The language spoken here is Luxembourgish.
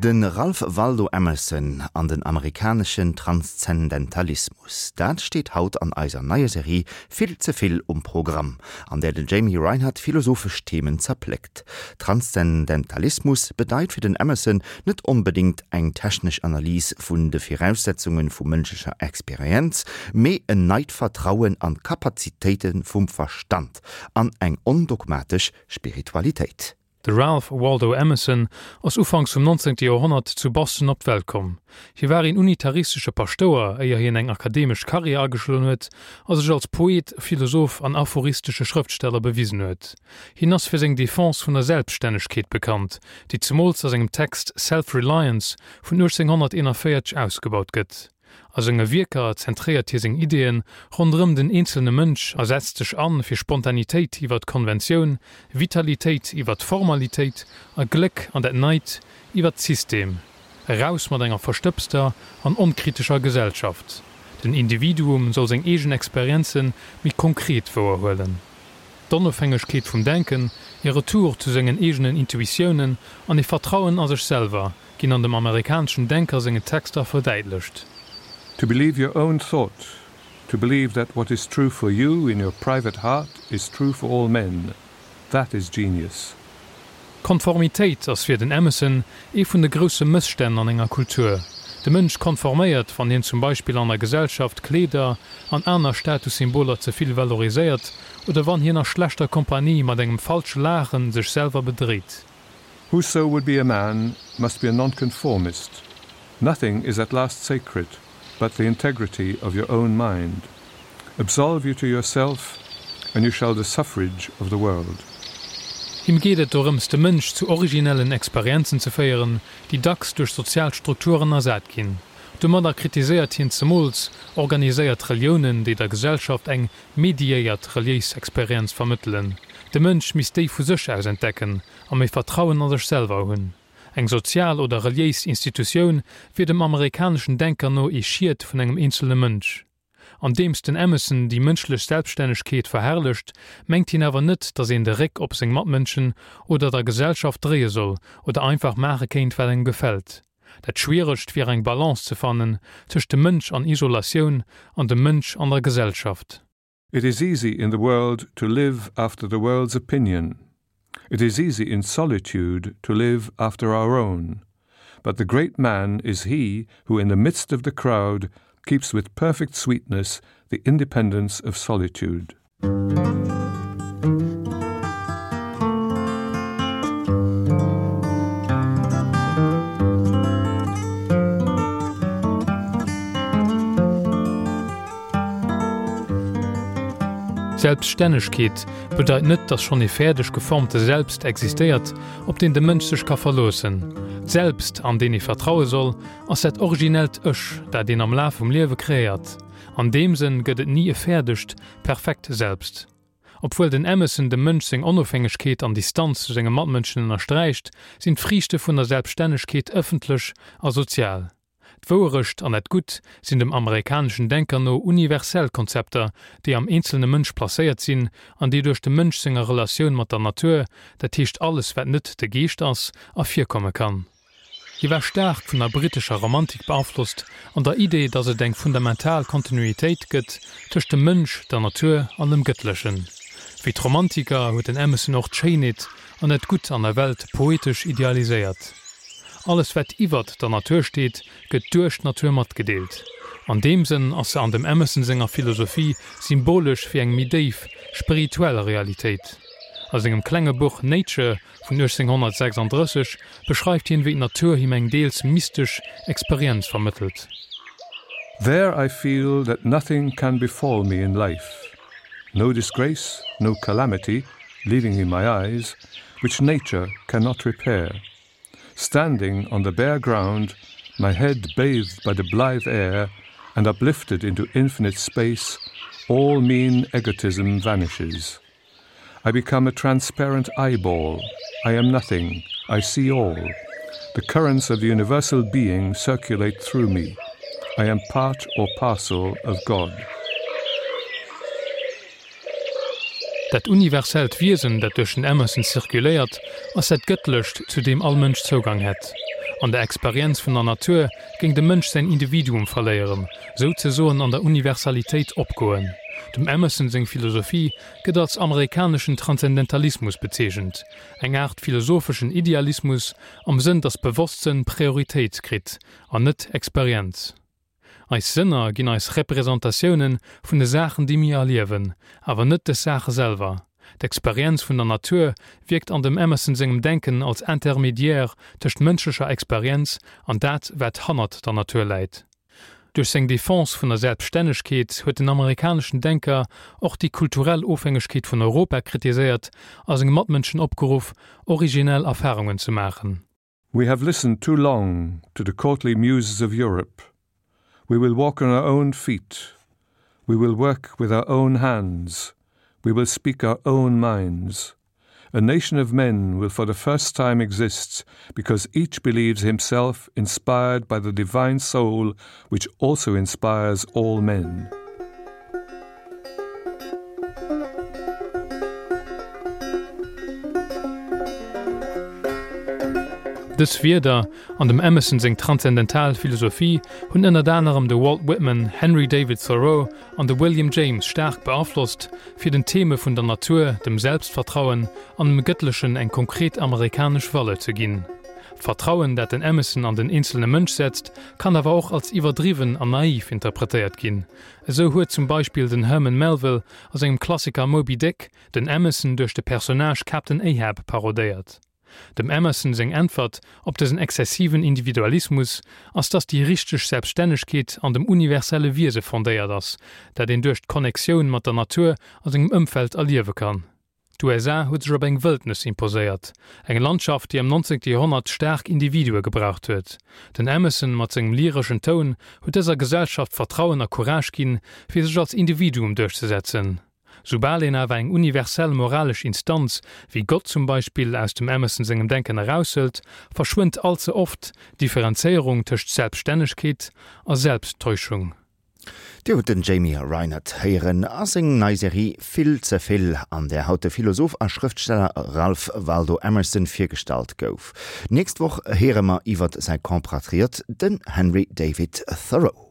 De Ralph Waldo Emerson an den amerikaneschen Transzendentalismus, dat steet haut an eiser neier Serie Vill ze vill um Programm, an där den Jamie Reinert philosophesch Themen zerpléckt. Transzendentalismus bedeit fir den Emerson net onbedéngt eng technesch Analys vun de Viraussetzunge vu mënschlecher Experienz, mee en neit Vertrauen an d'Kapazitéite vum Verstand an eng ondogmatesch Spiritualitéit. De Ralph Waldo Emerson ass ufanks vum 19. Joerhonnert zu Boston op d'Welt komm. Hie war een unitaristesche Paschtouer, éier hien eng akademesch Karriär ageschloen huet a sech als Poet, Philosoph an aphoristesche Schrëftsteller bewisen huet. Hien ass fir seng Defense vun der Selbststännegkeet bekannt, déi zemools a sengem Text Self-Reliance vun 1841 ausgebaut gëtt. A senge Wierker zentréiert hie seng Ideeën ronderëm den eenzelne Mënsch a setzt sech an fir Spontanitéit iwwer d'Konventioun, Vitalitéit iwwer d'Formalitéit a Gléck an dat Neit iwwer d'System. Eraus mat enger verstëbster an onkritescher Gesellschaft. Den Individuum soll seng eegen Experienze méi konkret wouerhuelen. D'Onofhängegkeet vum Denken, ee Retour zu sengen eegenen Intuitiounen an ee Vertrauen a sech selwer, ginn an dem amerikaneschen Denker sengen Texter verdäitlecht. To believe your own thought, to believe that what is true for you in your private heart is true for all men, that is genius. Konformitéit ass fir den Emerson ee vun de grousse Mësstänn an enger Kultur. De Mënsch konforméiert, wann hien zum Beispill an der Gesellschaft Kleeder an aner Statussymboler ze vill valoriséiert oder wann hien a schlechter Kompanie mat engem falsche Laachen sech selwer bedréit. Whoso would be a man must be a nonconformist. Nothing is at last sacred but the integrity of your own mind. Absolve you to yourself, and you shall the suffrage of the world. Him geet et dorëms, de Mënsch zu originellen Experienzen ze féieren, déi dacks duerch sozial Strukturen ersat ginn. Domadder kritiséiert hien zemools organiséiert Reliounen, déi der Gesellschaft eng mediéiert reliéis Experienz vermëttelen. De Mënsch misst déi vu sech aus entdecken a méi Vertrauen a sech selwer hunn. Eng sozial oder reliéis Institutioun wier dem amerikaneschen Denker no ee Schiet vun engem eenzelne Mënsch. Andeems den Emerson déi mënschlech Selbststännegkeet verherrlecht, mengt hien awer net, datt een de Réck op seng Matmënschen oder der Gesellschaft dréie soll oder einfach maache kéint, wat engem gefält. Dat Schwieregst wier eng Balance ze fannen tëscht dem Mënsch an Isolatioun an dem Mënsch an der Gesellschaft. It is easy in the world to live after the world's opinion. It is easy in solitude to live after our own. But the great man is he who in the midst of the crowd keeps with perfect sweetness the independence of solitude. Selbststännegkeet bedeit net, dass schonn ee fäerdeg geformte Selbst existéiert, op deen de Mënsch sech ka verloossen. D'Selbst, an deen ee vertraue soll, ass dat originellt Ech, dat een am Laf vum Liewe kreéiert. An deem Sënn gëtt et ni e fäerdegt, perfekt Selbst. Obwuel den Emerson dem Mënsch seng Onofhängegkeet an Distanz zu senge Matmënschen ënnersträicht, sinn d'Friichte vun der Selbststännegkeet ëffentlech a sozial. D'Wouerecht an dat Gutt sinn dem amerikaneschen Denker no universell Konzepter, déi am eenzelne Mënsch placéiert sinn an déi duerch dem Mënsch senger Relatioun mat der Natur, dat heescht alles wat net de Geescht ass, ervirkomme kann. Hie war staark vun der brittescher Romantik beaflosst an der Idee, datt et eng fundamental Kontinuitéit gëtt tëscht dem Mënsch, der Natur an dem Gëttlechen. Wéi d'Romantiker huet den Emerson och d'Schéinheet an dat Gutt an der Welt poetesch idealiséiert. Alles wat iwwert der Natur steet, gëtt duerch d'Natur matgedeelt. An deem Sënn ass se an dem Emerson senger Philosophie symbolesch fir eng méi déif, spirituell Realitéit. A sengem klenge Buch Nature vun 1836 beschreift hien, wéi d'Natur him eng deels mystesch Experienz vermëttelt. There I feel that nothing can befall me in life, no disgrace, no calamity, leaving in my eyes, which nature cannot repair. Standing on the bare ground, my head bathed by the blithe air and uplifted into infinite space, all mean egotism vanishes. I become a transparent eyeball. I am nothing. I see all. The currents of the universal being circulate through me. I am part or parcel of God. Dat universellt Wiesen, dat duerch den Emerson zirkuléiert, ass dat Gëttlecht, zu deem all Mënsch Zougang hätt. An der Experienz vun der Natur géing de Mënsch säin Individuum verléieren, souzesoen an der Universalitéit opgoen. Dem Emerson seng Philosophie gëtt als amerikaneschen Transzendentalismus bezeechent, eng Aart philosopheschen Idealismus am Sënn, datt Bewosstsënn Prioritéit kritt an net Experienz. Eis Sënner ginn eis Representatioune vun de Saachen, déi mir erliewen, awer net dës Saache selwer. D'Experienz vun der Natur wierkt an dem Emerson sengem Denken als Intermédiaire tëscht mënschlecher Experienz an dat, wat hannert der Natur läit. Duerch seng Defense vun der Selbststännegkeet huet den amerikaneschen Denker och déi kulturell Ofhängegkeet vun Europa kritiséiert a senge Matmënschen opgeruff, originell Erfarungen ze maachen. We have listened too long to the courtly muses of Europe. We will walk on our own feet. We will work with our own hands. We will speak our own minds. A nation of men will for the first time exist because each believes himself inspired by the divine soul which also inspires all men. Dës Wierder an dem Emerson seng transzendental Philosophie hunn ënnert anerem de Walt Whitman, Henry David Thoreau an de William James staark beaflosst, fir den Theme vun der Natur, dem Selbstvertrauen an dem Gëttlechen eng konkret amerikanesch Valeur ze ginn. D'Vertrauen, dat den Emerson an den eenzelne Mënsch setzt, kann awer och als iwwerdriwwen an naiv interpretéiert ginn. Esou huet zum Beispill den Herman Melville a sengem Klassiker Moby Dick den Emerson duerch de Personnage Captain Ahab parodéiert. Dem Emerson seng Äntwert op dësen exzessiven Individualismus ass, dass déi richteg Selbststännegkeet an dem universelle Wiese fondéiert ass, dat een duerch d'Connectioun mat der Natur a sengem Ëmfeld erliewe kann. D'USA huet sech op eng Wëldnes imposéiert, eng Landschaft, déi am 19. Joerhonnert staark Individue gebraucht huet. Den Emerson mat sengem lyreschen Toun huet dëser Gesellschaft Vertrauen a Courage ginn, fir sech als Individuum duerchzesetzen. Soubal een awer eng universell moralesch Instanz, wéi Gott zum Beispill, aus dem Emerson sengem Denken eraushëlt, verschwënnt all ze oft d'Differenzéierung tëscht Selbststännegkeet a Selbsttäuschung. Dir hutt den Jamie Reinert héieren a seng nei Serie Vill ze vill, an där haut de Philosoph a Schrëftsteller Ralph Waldo Emerson virgestallt gouf. D'nächst Woch héiere mer iwwert säi Compatriot, den Henry David Thoreau.